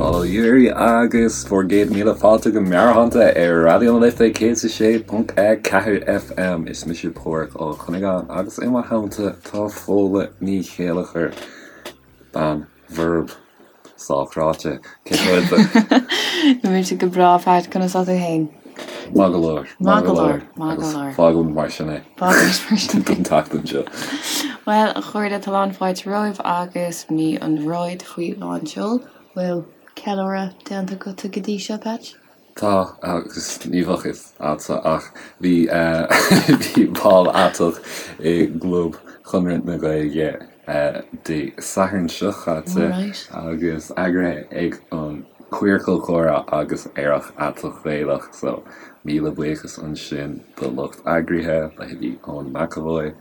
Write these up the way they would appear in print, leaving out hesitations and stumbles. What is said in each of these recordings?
Bail ó Dhia oraibh agus bhur gcéad míle fáilte go Meabhairshláinte ar Raidió na Life 106.4 FM. Is mise Páraic Ó Cuinneagáin agus i mo theannta tá Fódhla Ní Chéilleachair, bean bhorb sách ráite. Cén chaoi a bhfuil tú? Tá mise go breá, Pat, conas tá tú féin? Maith go leor. Maith go leor. Maith go leor. Fágfaimid mar sin é. Fágfaimid mar sin é. Don tseachtain seo. Bhuel, a chairde, tá lán fáilte romhaibh agus mí an Mhárta faoi lán seoil. Bhfuil ceiliúradh déanta agatsa go dtí seo, Patch? Tá, agus ní bheadh fhios a'dsa ach bhí bhí bál aiteach i gClub Chonradh na Gaeilge Dé Sathairn seo chaite agus eagraithe ag an Queercal Comhrá agus Aerach Aiteach Gaelach so míle buíochas ansin do lucht eagraithe, leithéidí Eoin McEvoy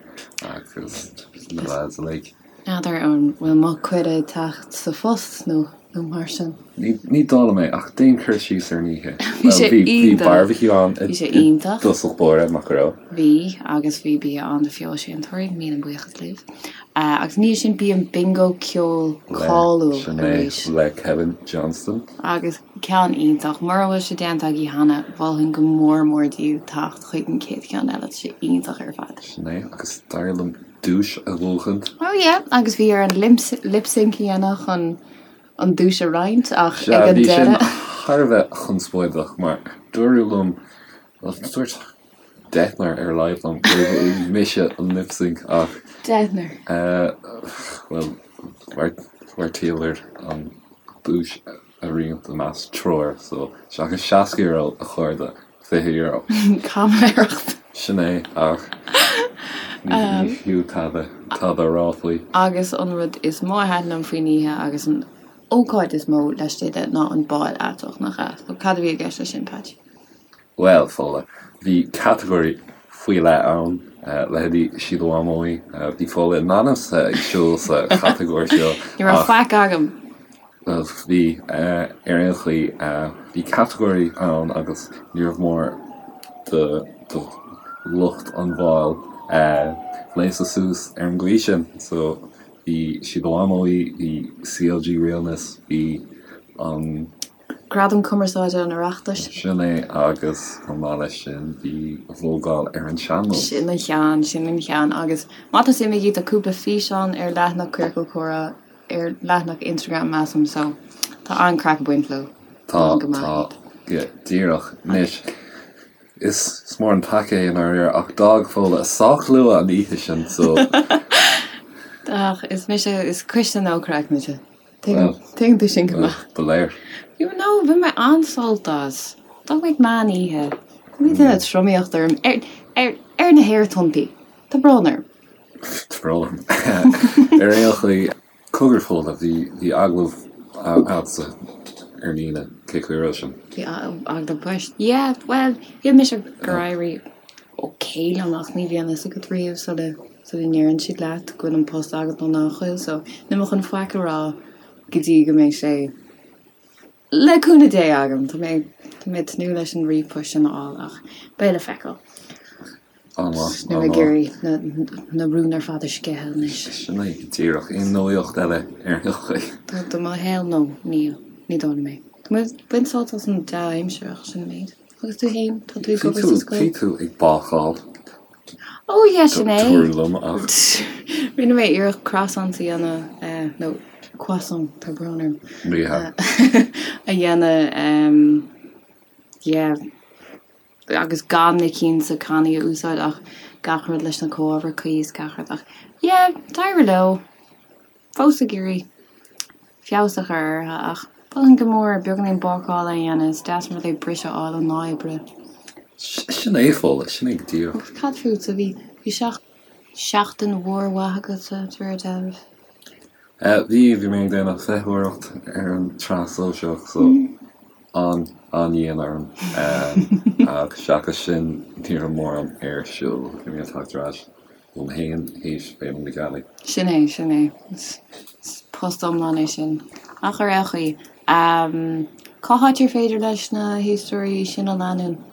agus na lads uilig. N'fheadar an bhfuil mo cuireadh ag teacht sa phost nó nó mar sin. Ní dóigh liom é, ach déan cur síos ar an oíche. Bhí sé Bhuel, bhí iontach. barbecue ann Bhí sé i iontach. dtosach báire, nach raibh? Bhí, agus bhí bia ann do fheoilséantóirí, míle buíochas libh. Agus ina dhiaidh sin bhí an bingo ceoil Le, cáiliúil sin é, arís. le Kevin Johnston. Agus ceann iontach. Mura bhfuil sé déanta agaibh cheana, mholfainn go mór mór daoibh teacht chuig an chéad cheann eile, tá sé iontach ar fad. Sin é, agus d'éirigh liom duais a bhuachaint. Oh yeah, agus bhí orainn lip sync a dhéanamh chun an duais a roinnt ach Sea, ag an bhí sin deireadh. thar a bheith conspóideach mar dúradh liom, bhuel dúirt deichniúr ar a laghad liom gurbh mise an lip sync ach. Deichniúr. Bhuel, bheartaíomar an duais a roinnt i measc triúr so seachas €60 a chairde, €20. Caimiléireacht. Sin é, ach ní fiú tada, tada a rá faoi. Agus an rud is mó a thaitin liom faoin oíche agus an ócáid is mó laistigh de ná an bál aiteach, nach ea? So cad a bhí i gceist leis sin, Patch? Bhuel, Fódhla, bhí catagóirí faoi leith ann, leithéidí Síle Mhamóí, bhí Fódhla in ainm's ag siúl sa chatagóir seo. Ní raibh faic agam! Bhuel, bhí, ar aon chaoi, bhí catagóirí ann agus níorbh mór do lucht an bháil gléasadh suas ar an gcaoi sin. So, bhí Síle Mhamóí, bhí CLG Realness, bhí an. Gradam Cumarsáide an Oireachtais. Sin é agus chomh maith leis sin bhí Vogáil ar an Sean-Nós. Sin an ceann, sin an ceann. Agus má tá suim agaibh tá cúpla físeán ar leathanach Queercal Comhrá ar leathanach Instagram measaim so tá an-craic ag baint leo. Tá, tá, go díreach. Anois, is mór an peaca é i ndáiríre ach d'fhág Fódhla sách luath an oíche sin so. Ach is mise, is cuisle no craic mise. Tuigeann tú sin go maith. Ba léir. You know, bhain mé an-sult as. D'fhág mé ag meán oíche. Bhí duine tromaíocht orm ar, ar, ar na haerthonntaí. Tá brón orm. Tá brón orm. Ar aon chaoi, cogar Fódhla, bhí, bhí agallamh agatsa ar líne, cén chaoi a raibh sin? Bhí agallamh poist. Yeah, bhuel, shíl mise gur éirigh ok liom ach ní bhíonn fhios agat riamh sula sula ndeireann siad leat go bhfuil an post agat nó nach bhfuil so níl mé chun faic a rá go dtí go mbeidh sé le cúnamh Dé agam. Tá mé tá mé ag tnúth leis an ríomhphost sin a fháil ach beidh le feiceáil. An-mhaith, Níl mé ag an-mhaith. iarraidh na na rúin ar fad a sceitheadh anois. Sin é go díreach. Aon nuaíocht eile ar aon chaoi? Do do mo shaol nó níl, ní dóigh liom é. Tá mé ag baint sult as an dea-aimsir ach sin an méid. Agus tú féin, tá tú ag obair sa scoil? Bhí tú ag bácáil. Ó yeah, sin é. Dúradh liom ach. Rinne mé iarracht croissant a dhéanamh, nó croissant, tá brón orm. Ní hea. A dhéanamh, yeah, agus gan na cinn sa cannaí a úsáid ach gach rud leis na comhábhair cuí is gach rud ach yeah, d'éirigh leo. Fós ag iarraidh feabhas a chur orthu ach mholfainn go mór beagáinín bácála a dhéanamh, is deas an rud é briseadh a fháil ón lá oibre. Sin é, Fódhla, sin é go díreach. Agus cad fútsa, bhí, bhí seachtain mhór mhaith agatsa, de réir dealraimh? Bhí, bhí mé ag déanamh feitheoireacht ar an tsraith sóisearach so an, an-dhian orm. Ach seachas sin ní raibh mórán ar siúl, bhí mé ag teacht ar ais. Dom fhéin théis Féile na Gealaí. Sin é, sin é. Is post iomlán é sin. Ach ar aon chaoi, cá háit ar féidir leis na héisteoirí sinn a leanúint?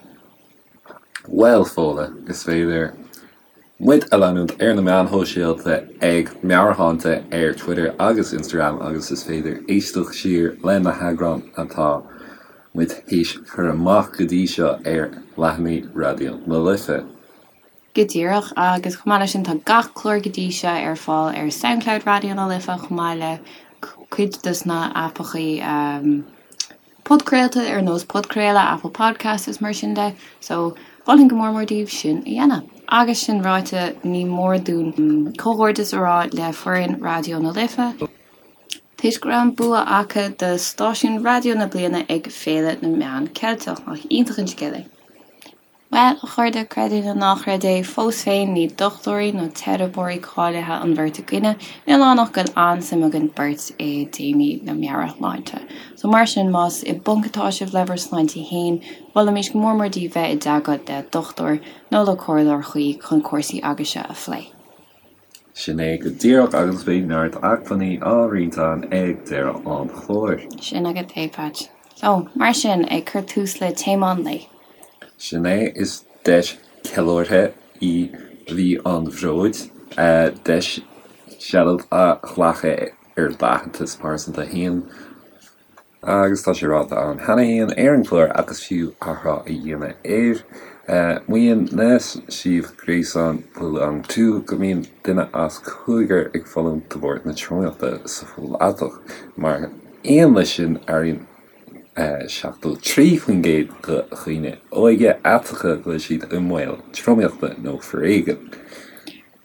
Bhuel, Fódhla, is féidir. Muid a leanúint ar na meáin shóisialta ag Meabhairshláinte ar Twitter agus Instagram agus is féidir éisteacht siar le na heagráin atá muid théis cur amach go dtí seo ar leathanaigh Raidió na Life. Go díreach, agus chomh maith leis sin tá gach clár go dtí seo ar fáil ar Soundcloud Raidió na Life chomh maith le cuid dos na aipeachaí podchraolta ar nós Podchraoladh, Apple Podcasts is mar sin de, so mholfainn go mór mór daoibh sin a dhéanamh. Agus sin ráite, ní mór dúinn comhghairdeas a rá le foireann Raidió na Life, toisc go raibh an bua acu do Stáisiún Raidió na Bliana ag Féile na Meán Ceilteach. Nach iontach an scéal é? Bhuel, a chairde, creid é nó ná creid é, fós féin ní dochtúirí nó teiripeoirí cáilithe an bheirt againne, níl ann ach go bhfuil an-suim againn beirt i dtéamaí na meabhairshláinte. So mar sin, más i bponc atá sibh le bhur sláinte féin, mholfaimis go mór mór daoibh bheith i dteagmháil le dochtúir nó le comhairleoir chuí chun cúrsaí agaibhse a phlé. Sin é go díreach agus beidh neart acmhainní á roinnt againn ag deireadh an chláir. Sin agat é, Patch. So, mar sin, ag cur tús le téama an lae. Sin é, is deis ceiliúrtha í Mhí an Bhróid, deis seilbh a ghlacadh ar d'aitheantas pearsanta féin. Agus tá sé ráite ann cheana féin ar an gclár ach is fiú athrá a dhéanamh air. Maíonn na suíomh gréasáin Belong To go mbíonn duine as cúigear ag fulaingt de bharr na tromaíochta sa phobal aiteach. Mar aon leis sin, airíonn 73% de dhaoine óga aiteacha go bhfuil siad i mbaol tromaíochta nó foréigin.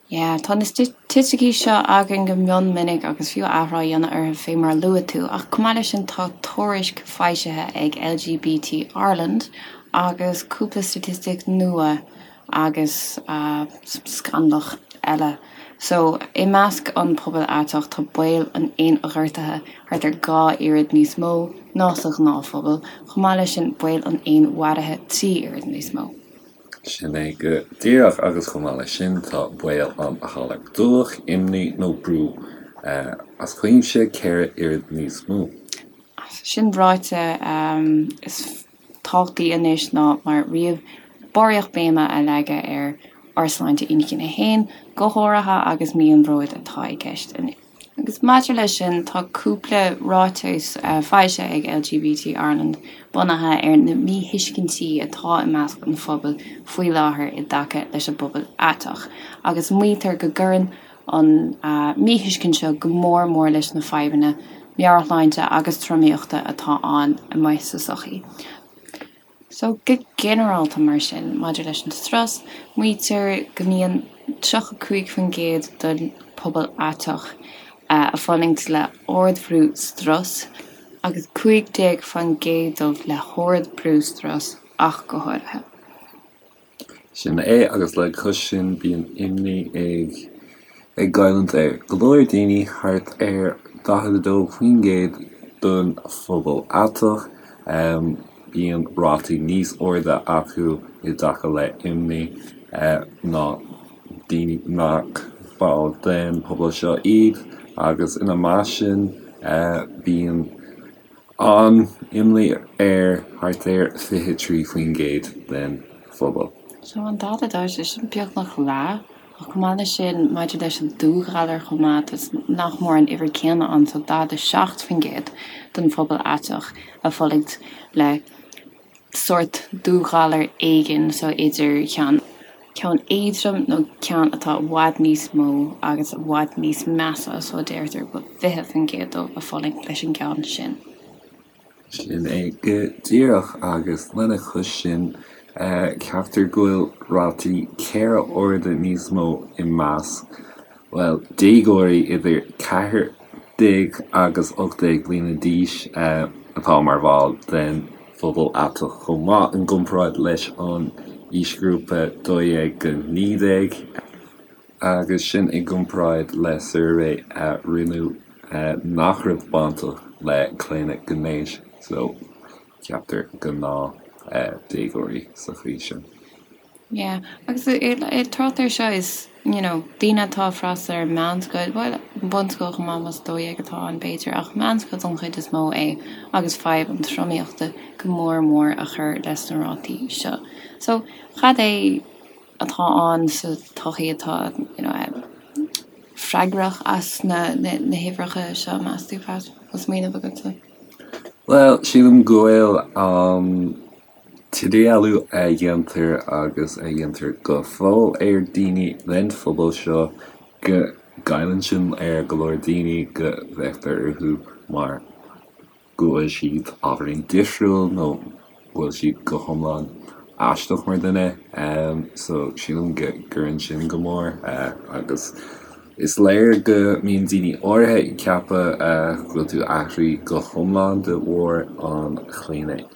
Yeah, tá na staitisticí seo againn go mion minic agus fiú athrá a dhéanamh orthu fé mar a luaigh tú, ach chomh maith leis sin tá tuairisc foilsithe ag LGBT Ireland agus cúpla staitistic nua agus scannalach eile. So, i measc an pobail aiteach tá baol an fhéinghortaithe thart ar 2 oiread níos mó ná sa ghnáthphobal, chomh maith leis sin baol an fhéinmharaithe 3 oiread níos mó. Sin é go díreach agus chomh maith leis sin tá baol an ghalair dubhach, imní nó brú as cuimse 4 oiread níos mó. Sin ráite, is tábhachtaí anois ná mar riamh barraíocht béime a leagadh ar ár sláinte inchinne féin, go háirithe agus mí an bhróid atá i gceist anois. Agus maidir leis sin, tá cúpla ráiteas foilsithe ag LGBT Ireland bunaithe ar na míthuiscintí atá i measc an phobail faoi láthair i dtaca leis an bpobal aiteach, agus maítear go gcuireann an míthuiscint seo go mór mór leis na fadhbanna meabhairshláinte agus tromaíochta atá ann amuigh sa tsochaí. So, go ginearálta mar sin, maidir leis an strus, maítear go mbíonn 35% den pobal aiteach ag fulaingt le ardbhrú strus agus 15% dóibh le hardbhrú strus ach go háirithe. Sin é, agus le cois sin bíonn imní ag ag goilliúint ar go leor daoine, thart ar 42% den phobal aiteach. Bíonn rátaí níos airde acu i dtaca le imní ná daoine nach ball den phobal seo iad, agus ina measc sin bíonn An-imní ar thart ar 23% den phobal. So an 42, sé sin beagnach leath. Ach chomh maith leis sin, maidir leis an dúghalar chomh maith, tá nach mór an uimhir céanna ann, so 47% den phobal aiteach ag fulaingt le sórt dúghalar éigin, so idir cheann ceann éadrom nó ceann atá i bhfad níos mó agus i bhfad níos measa, so deirtear go bhfuil 20% dóibh ag fulaingt leis an gceann sin. Sin é go díreach, agus lena chois sin, ceaptar go bhfuil rátaí 4 huaire níos mó i measc, bhuel, déagóirí idir 14 agus 18 bliana d'aois atá mar bhall den phobal aiteach chomh maith, i gcomparáid leis an aoisghrúpa 12-19, agus sin i gcomparáid le suirbhé a rinneadh nach raibh bainteach le claonadh gnéis, so ceaptar gnáth déagóirí sa chaoi sin. Yeah, agus ag trácht air seo is, you know, daoine atá ag freastal ar meánscoil, bhuel, bunscoil chomh maith más 12 atá ann b'fhéidir, ach meánscoil don chuid is mó é agus fadhb an tromaíochta go mór mór a chur leis na rátaí seo. So, cad é. atá ann sa tsochaí atá you know freagrach as na na huimhreacha seo, meas tú, Pat? Bhfuil smaoineamh agatsa? Bhuel, sílim go bhfuil an t-idirdhealú a dhéantar agus a dhéantar go fóill ar daoine den phobal seo, go gcailleann sin ar go leor daoine, go bhféachtar orthu mar go bhfuil siad ábhairín difriúil nó go bhfuil siad go hiomlán aisteach mar dhuine. So sílim go gcuireann sin go mór agus is léir go mbíonn daoine áirithe ag ceapadh go bhfuil tú athraithe go hiomlán de bharr an chlaonadh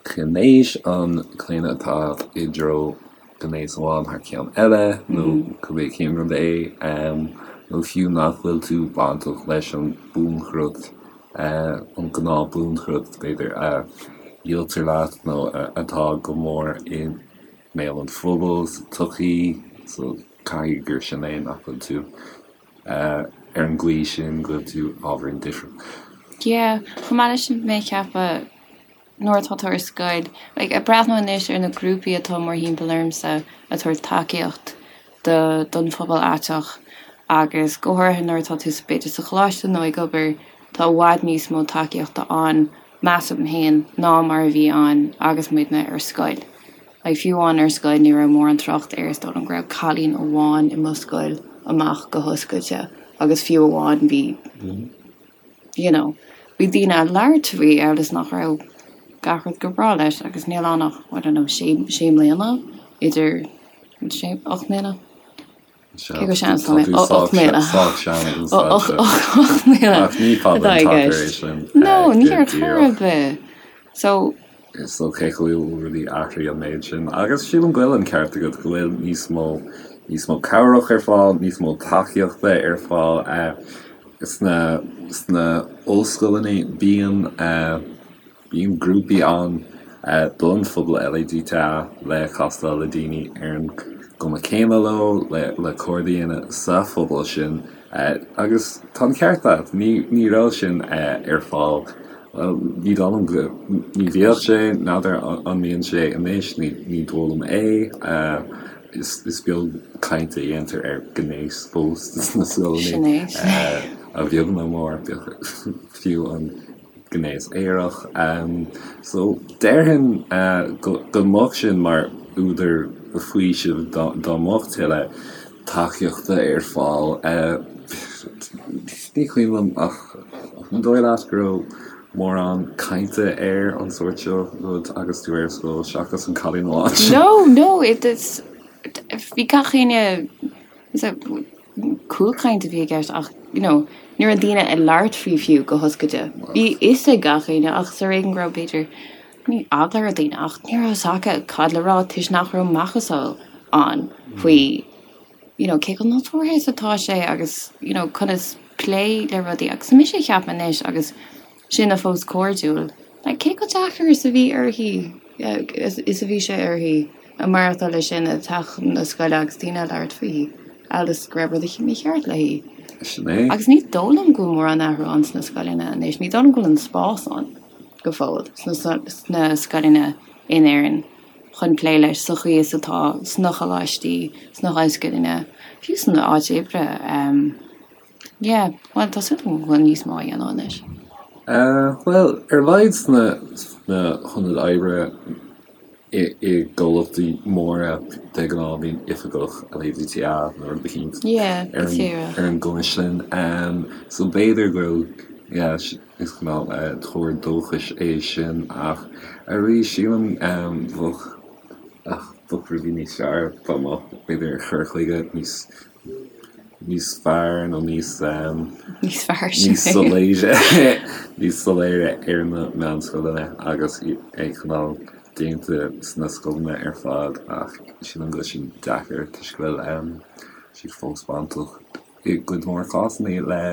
ghnéis, an claonadh atá i dtreo gnéas amháin thar ceann eile nó cibé cén rud é, nó fiú nach bhfuil tú bainteach leis an buanchrut, an gnáth buanchrut, b'fhéidir, a dhíoltar leat nó atá go mór i mbéal an phobail sa tsochaí, so caithfidh gur sin é nach bhfuil tú ar an gcaoi sin go bhfuil tú ábhairín difriúil. Yeah, chomh maith leis sin mé ag ceapadh nuair atá tú ar scoil, like, ag breathnú anois ar na grúpaí atá mórthimpeall ormsa ag tabhairt tacaíocht do don phobal aiteach agus go háirithe nuair atá tú b'fhéidir sa choláiste nó ag obair, tá i bhfad níos mó tacaíochta ann, measaim féin, ná mar a bhí ann agus muidne ar scoil. Like, fiú amháin ar scoil ní raibh mórán trácht air, is dóigh liom go raibh cailín amháin i mo scoil amach go hoscailte agus fiú amháin bhí you know, bhí daoine ag labhairt faoi amhail is nach raibh gach rud go breá leis agus níl ann ach, I don't know, sé, sé mbliana idir, sé, 8 mbliana? Cé chomh sean is atá mé? 8 mbliana. Sách sean ag an staid seo. 8 mbliana. Ach ní fada an t-achar é sin. No, ní ar chor ar bith. So. So cé go bhfuil rudaí athraithe an méid sin, agus sílim go bhfuil an ceart agat go bhfuil níos mó, níos mó cabhrach ar fáil, níos mó tacaíochta ar fáil. Sna sna ollscoileanna bíonn bíonn grúpaí ann don phobal LADTA le castáil le daoine ar an gcuma céanna leo, le le cairde a dhéanamh sa phobal sin agus tá an ceart agat, ní ní raibh sin ar fáil, bhuel ní dóigh liom go, ní bhíodh sé, n'fheadar an mbíonn sé anois, ní ní dóigh liom é. Is beag caint a dhéantar ar ghnéas fós sna scoileanna, a bheag nó a mhór, fiú an gnéas aerach. So déarfainn go mbeadh sin mar údar faoisimh dá mbeadh tuilleadh tacaíochta ar fáil. Ní cuimhin liom ach an dóigh leat go raibh mórán cainte ar an sórt seo rud agus tú ar scoil seachas an cailín amháin sin? No, no, it is, bhí gach éinne, cúlchaint a bhí i gceist ach, you know, ní raibh daoine ag labhairt faoi fiú go hoscailte. Bhí fhios ag gach éinne ach is ar éigean go raibh b'fhéidir, ní eagla ar daoine ach ní raibh fhios acu cad le rá toisc nach raibh macasamhail ann faoi you know, cé chomh nádúrtha is atá sé agus, you know, conas plé le rudaí. Agus mise ag ceapadh anois agus sinne fós cairdiúil, like, cé chomh deacair is a bhí uirthi, is a bhí sé uirthi a maireachtáil leis sin ag teacht chun na scoile agus daoine ag labhairt fúithi, amhail is go raibh rud eicínt mícheart léi. Sin é. Agus ní dóigh liom go bhfuil mórán athrú ann sna scoileanna anois, ní dóigh liom go bhfuil an spás ann go fóill sna, sna scoileanna in Éirinn. chun plé leis sa chaoi is atá sna coláistí, sna hollscoileanna, fiú san áit oibre. Yeah, bhuel, tá súil agam go bhfuil níos mó á dhéanamh anois. Bhuel, ar a laghad sna hionaid oibre i gcomhlachtaí móra, de ghnáth bíonn oifigeach LADTA nó rud eicínt ar an gcuma sin. So b'fhéidir go bhfuil, yeah, Is cineál tuar dóchais é sin ach arís sílim bheadh bheadh rudaí níos fearr dá mbeadh b'fhéidir cur chuige níos níos fearr nó níos níos fearr sin níos soiléire níos soiléire ar na meánscoileanna agus é cineál déanta sna scoileanna ar fad ach sílim go bhfuil sin deacair toisc go bhfuil siad fós bainteach i gcuid mhór cásanna le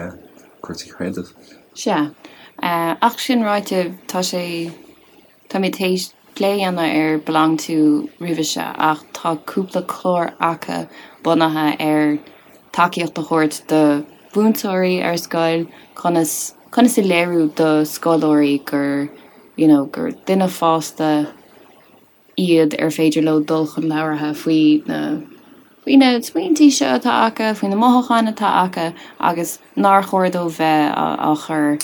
cúrsaí creidimh. Sea. Ach sin ráite, tá sé, táimid théis plé a dhéanamh ar Belong To roimhe seo ach tá cúpla clár acu bunaithe ar tacaíocht a thabhairt do mhúinteoirí ar scoil, conas, conas a léiriú do scoláirí gur, you know, gur duine fásta. iad ar féidir leo dul chun labhartha faoi na faoi na smaointí seo atá acu, faoi na mothúcháin atá acu agus nár chóir dóibh bheith á chur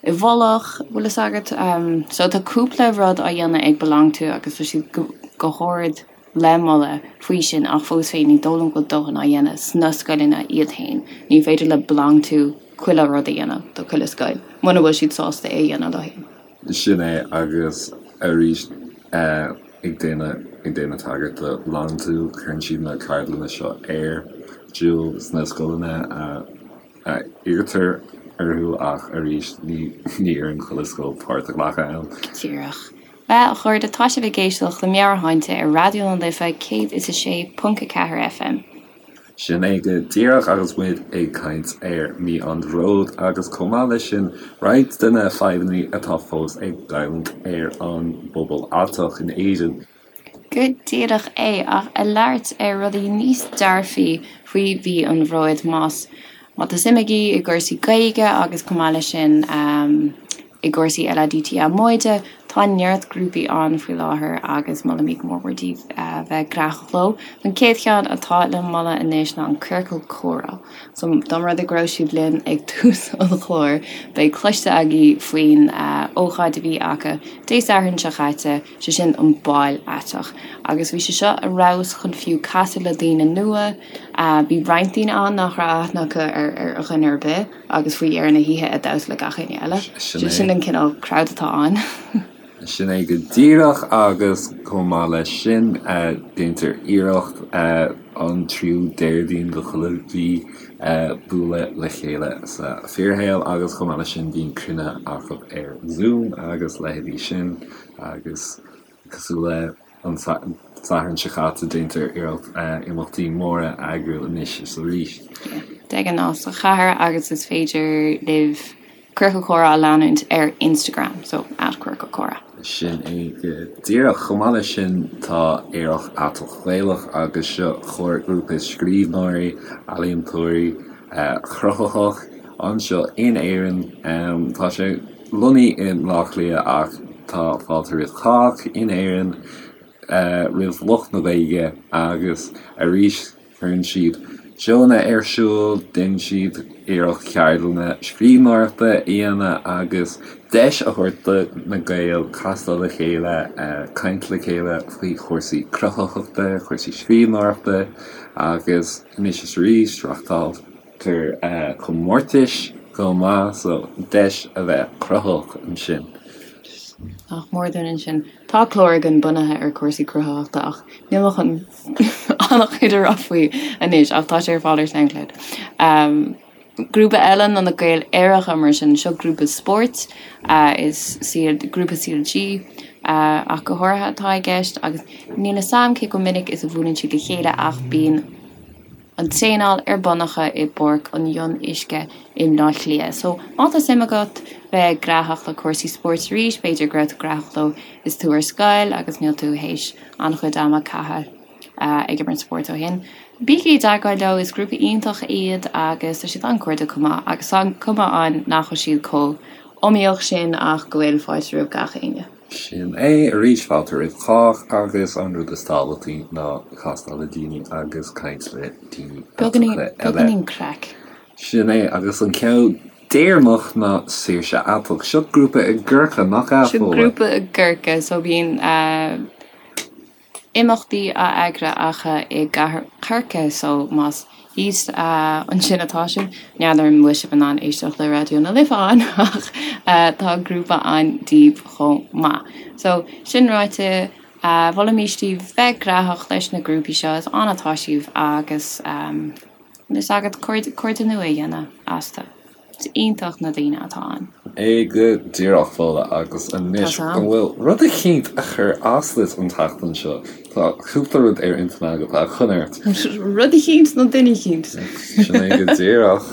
i bhfolach, bhfuil fhios agat. So tá cúpla rud á dhéanamh ag BeLonG To agus tá siad go hard le moladh faoi sin ach fós féin ní dóigh liom go bhfuil dóthain á dhéanamh sna scoileanna iad féin. Ní féidir le BeLonG To chuile rud a dhéanamh do chuile scoil muna bhfuil siad sásta é a dhéanamh leo féin. Sin é agus arís ag déanamh ag déanamh tagairt do BeLonG To, cuireann siad na ceardlanna seo ar siúl sna scoileanna a iarrtar orthu ach arís ní ní iarrann chuile scoil páirt a ghlacadh ann. Díreach. Bhuel, a chairde, tá sibh ag éisteacht le Meabhairshláinte ar Raidió na Life 106.4 FM. Sin é go díreach agus muid ag caint ar Mí an Bhróid agus chomh maith leis sin roinnt de na fadhbanna atá fós ag goilliúint ar an bpobal aiteach in Éirinn. Go díreach é, ach ag labhairt ar rudaí níos dearfaí faoi Mhí an Bhróid más má tá suim agaibh i gcúrsaí Gaeilge agus chomh maith leis sin I gcúrsaí LADTA móide, tá neart grúpaí ann faoi láthair agus molaimid go mór mór daoibh bheith gnaitheach leo. An chéad cheann atá le moladh anois ná an Ciorcal Comhrá. So dá mba rud é go raibh sibh linn ag tús an chláir, beidh cloiste agaibh faoin ócáid a bhí acu Dé Sathairn seo chaite, sé sin an Bál Aiteach. Agus bhí sé seo ar fheabhas chun fiú casadh le daoine nua. Bhí roinnt daoine ann nach raibh aithne acu ar dhuine ar bith. agus faoi dheireadh na hoíche ag damhsa le gach éinne eile. Sin an cineál crowd atá ann. Sin é go díreach agus chomh maith leis sin déantar iarracht an tríú Déardaoin de chuile mhí bualadh le chéile sa fíorshaol agus chomh maith leis sin bíonn cruinnithe acu ar Zoom agus leithéidí sin agus cosúil le an Satharn seo caite déantar iarracht imeachtaí móra a eagrú anois is arís. De ghnáth sa chathair agus is féidir libh Ciorcal Comhrá a leanúint ar Instagram, so at Ciorcal Comhrá. Sin é go díreach. Chomh maith leis sin tá Aerach Aiteach Gaelach agus seo comharghrúpa scríbhneoirí, ealaíontóirí cruthaitheach anseo in Éirinn. Tá sé lonnaithe i mBleá Cliath ach tá fáilte roimh chách in Éirinn, roimh lucht na Gaeilge agus arís cuireann siad seónna ar siúl, déanann siad iarracht ceardlanna scríbhneoireachta a dhéanamh agus deis a thabhairt do na Gaeil castáil le chéile, caint le chéile faoi chúrsaí cruthaitheachta, cúrsaí scríbhneoireachta agus anois is arís reáchtáil. tar comórtais chomh maith so deis a bheith cruthaitheach ansin. Nach mór dúinn ansin. Tá clár againn bunaithe ar cúrsaí cruthaitheachta ach níl mé chun an-chuid a rá faoi anois ach tá sé ar fáil ar Soundcloud. Grúpa eile ná na Gaeil Aeracha mar sin, seo grúpa spóirt, is grúpa CLG ach go háirithe atá i gceist agus níl 'fhios a'm cé chomh minic is a bhuaileann siad le chéile ach bíonn an traenáil ar bun acu i bPáirc an Fhionnuisce i mBleá Cliath. So, má tá suim agat bheith gnaitheach le cúrsaí spóirt arís, b'fhéidir go raibh tú gnaitheach leo is tú ar scoil agus níl tú théis an-chuid ama caitheamh ag imirt spóirt ó shin, bígí i dteagmháil leo, is grúpa iontach iad agus tá siad an-chairdiúil chomh maith agus tá an cuma ann nach bhfuil siad chomh iomaíoch sin ach go bhfuil fáilte roimh gach éinne. Sin é, arís, fáilte roimh chách agus an rud is tábhachtaí ná castáil le daoine agus caint le daoine aiteacha eile. Beagáinín craic. Sin é, agus an ceann deireanach ná Saoirse Aiteach. Seo grúpa i gCorcaigh, nach ea, Seo Fódhla? grúpa i gCorcaigh, so bíonn imeachtaí á eagrú acu i gcathair Chorcaí so más thíos ansin atá sibh, n'fheadar an bhfuil sibh in ann éisteacht le Raidió na Life ann ach tá grúpa ann daoibh chomh maith. So sin ráite, mholfaimis daoibh bheith gnaitheach leis na grúpaí seo, is ann atá sibh agus is agat cairde nua a dhéanamh astu. Is iontach na daoine atá ann. É go díreach, Fódhla, agus anois, an bhfuil rud eicínt a chuir as duit an tseachtain seo? Tá cúpla rud ar intinn agat, a chonairt. Rud eicínt nó duine eicínt? Sin é go díreach.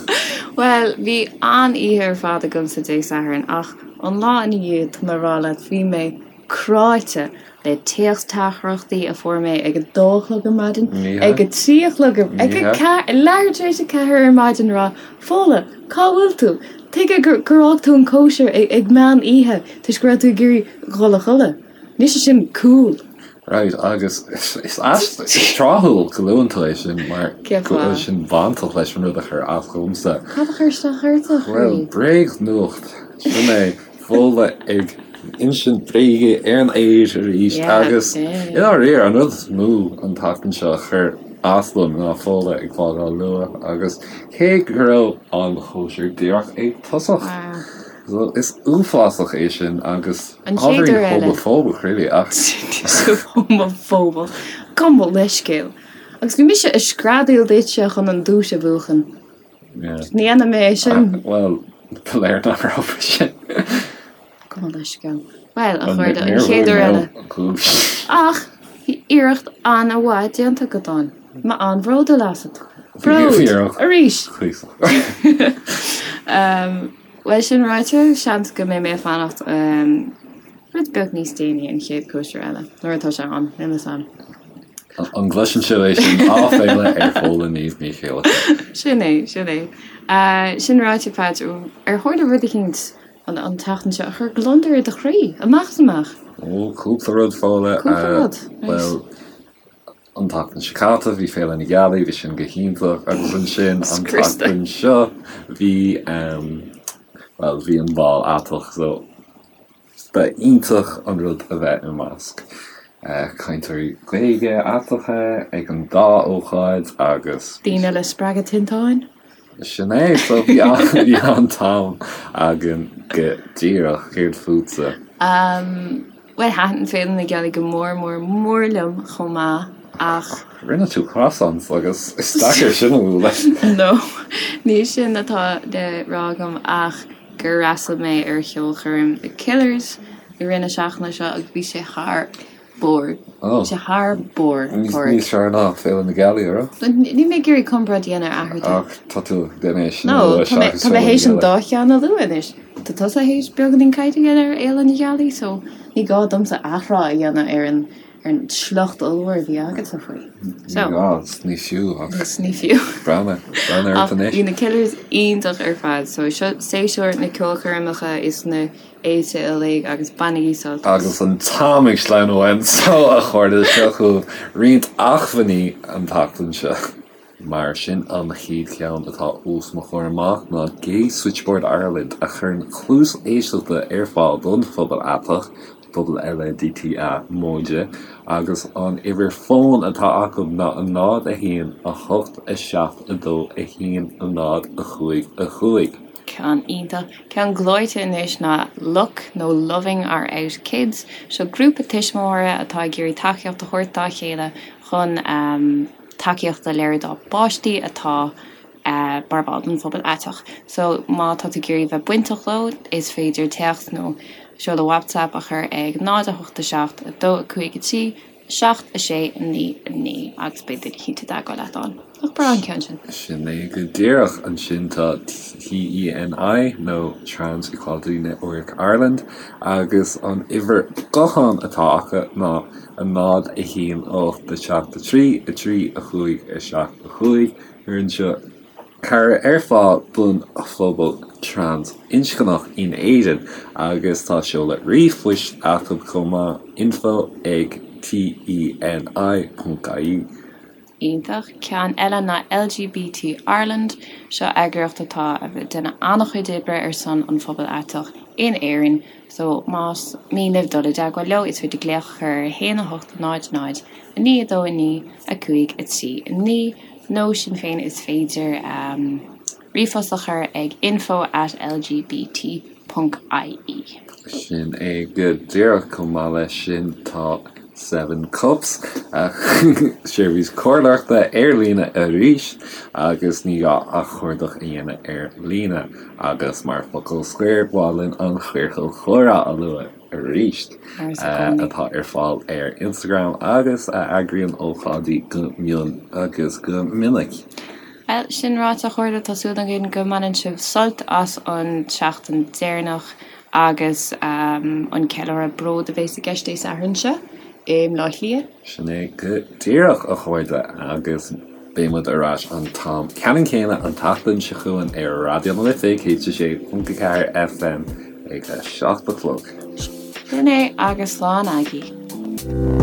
Bhuel, bhí an-oíche ar fad agamsa Dé Sathairn, ach an lá ina dhiaidh, tá mé ag rá leat, bhí mé cráite le téacs-teachtaireachtaí a fuair mé ag a dó a chlog ar maidin, ag a trí a chlog, ag a ceathair, leathuair tar éis a ceathair ar maidin ag rá, Fódhla, cá bhfuil tú? Tuige gur fhág tú an cóisir ag meán oíche toisc go raibh tú ag iarraidh dhul a chodladh? Níl sé sin cool. Right, agus is is tráthúil go luann tú é sin mar go bhfuil sin bainteach leis an rud a chuir as dhomsa. Cad a chuir isteach ort, a chroí? Bhuel, bréagnuacht, sin é, Fódhla ag insint bréige ar an aer arís agus i ndáiríre an rud is mó an tseachtain seo a chuir as dom ná Fódhla ag fágáil luath agus cé go raibh an chóisir díreach ag tosach. So is uafásach é sin agus An chéad uair eile. Homafóbach really ach. Homafóbach. Gabh mo leithscéal. Agus bhí mise ag screadaíl duitse chun an duais a bhuachan. Yeah. Ní dhéanfaidh mé é sin. Bhuel, ba léir nach raibh sin. Gabh mo leithscéal. Bhuel, a chairde, an chéad uair eile. Ach bhí iarracht an-mhaith déanta agat ann. Mé an-bhródúil asat. Bród! Arís! Bhuel, sin ráite, seans go mbeidh mé ag fanacht rud beag níos déanaí an chéad cóisir eile, nuair atá sé ann, níl fhios a'm. An gcloiseann sibh é sin? Áiféala ar Fódhla Niamh Ní Chéilleachair. Sin é, sin é. Sin ráite, Patch, ar tharla rud eicínt an tseachtain seo a chuir gliondar ar do chroí, amach is amach? Ó, cúpla rud, Fódhla. Cúpla rud, right. Bhuel, An tseachtain seo caite bhí Féile na Gealaí, bhí sin go hiontach agus ansin an tseachtain seo bhí bhuel bhí an bál aiteach so ba iontach an rud a bheith i measc cainteoirí Gaeilge aiteacha ag an dá ócáid agus. Daoine le spreagadh tinteáin. Sin é, so bhí an-am againn go díreach. Céard fútsa? Bhuel, thaitin Féile na Gealaí go mór mór mór liom chomh maith ach. Rinne tú croissants agus is deacair sin a bhualadh. No, ní sin atá le rá agam ach gur fhreastail mé ar cheolchoirm The Killers i rith na seachtaine seo agus bhí sé thar barr. Bhí sé thar barr, Pádraig. Níos fearr ná Féile na Gealaí, an raibh? Níl mé ag iarraidh comparáid a dhéanamh eatarthu. Ach tá tú ag déanamh é sin a lua seachas Féile na Gealaí. Tá mé théis an dá cheann a lua anois. Tá tusa théis beagáinín cainte a dhéanamh ar Fhéile na Gealaí so ní gá domsa athrá a dhéanamh ar an ar an sliocht ollmhór a bhí agatsa faoi. Ní gá, is ní fiú ach. Is ní fiú. Breathnaigh, breathnaigh ort anois. Ach bhí na Killers iontach ar fad so seo séasúr na ceolchoirmeacha is na fhéilte uilig agus bainigí sult as. Agus an t-am ag sleamhnú uainn so a chairde seo chugaibh roinnt acmhainní an tseachtain seo. Mar sin an chéad cheann atá os mo chomhair amach ná Gay Switchboard Ireland a chuireann cluas éisteachta ar fáil don phobal aiteach, pobal LADTA móide, agus an uimhir fóin atá acu ná 0 1 8 7 2 1 0 5 5. Ceann iontach. Ceann gleoite anois ná LOOK nó Loving Our Out Kids. Seo grúpa tuismitheoirí atá ag iarraidh tacaíocht a thabhairt dá chéile chun tacaíocht a léiriú dá bpáistí atá mar bhall den phobal aiteach. So má tá tú ag iarraidh bheith bainteach leo is féidir téacs nó seoladh WhatsApp a chur ag 0 8 7 2 5 3 7, 6, 9, 9 agus beidh duine eicínt i dteagmháil leat ann. Nach breá an ceann sin? Sin é go díreach. Ansin tá TENI nó Trans Equality Network Ireland agus an uimhir gutháin atá acu ná 0, 1, 8, 7, 3, 3, 5, 7, 5. Cuireann seo cabhair ar fáil don phobal trans-inscneach in Éirinn agus tá seoladh ríomhphoist acu chomh maith, info ag TENI ponc ie. Iontach. Ceann eile ná LGBT Ireland. Seo eagraíocht atá ag déanamh an-chuid oibre ar son an phobail aiteach in Éirinn. So más mian libh dul i dteagmháil leo is féidir glaoch a chur ar 1 8 0 0 9 2 9 5 3 9. Nó sin féin is féidir ríomhphost a chur ag info at lgbt ponc ie. Sin é go díreach. Chomh maith leis sin tá Seven Cups, seirbhís comhairleoireachta ar líne arís agus ní gá ach cuardach a dhéanamh ar líne. Agus mar focal scoir, ba mhaith linn an Ciorcal Comhrá a lua. arís, atá ar fáil ar Instagram agus a eagraíonn ócáidí go mion agus go minic. Bhuel, sin ráite, a chairde, tá súil againn go mbaineann sibh sult as an tseachtain deireanach agus an ceiliúradh bród a bhéas i gceist Dé Sathairn seo i mBleá Cliath. Sin é go díreach, a chairde, agus beidh muid ar ais an t-am ceannann céanna an tseachtain seo chugainn ar Raidió na Life 106.4 FM ag a 7 a chlog. Sin é agus slán agaibh.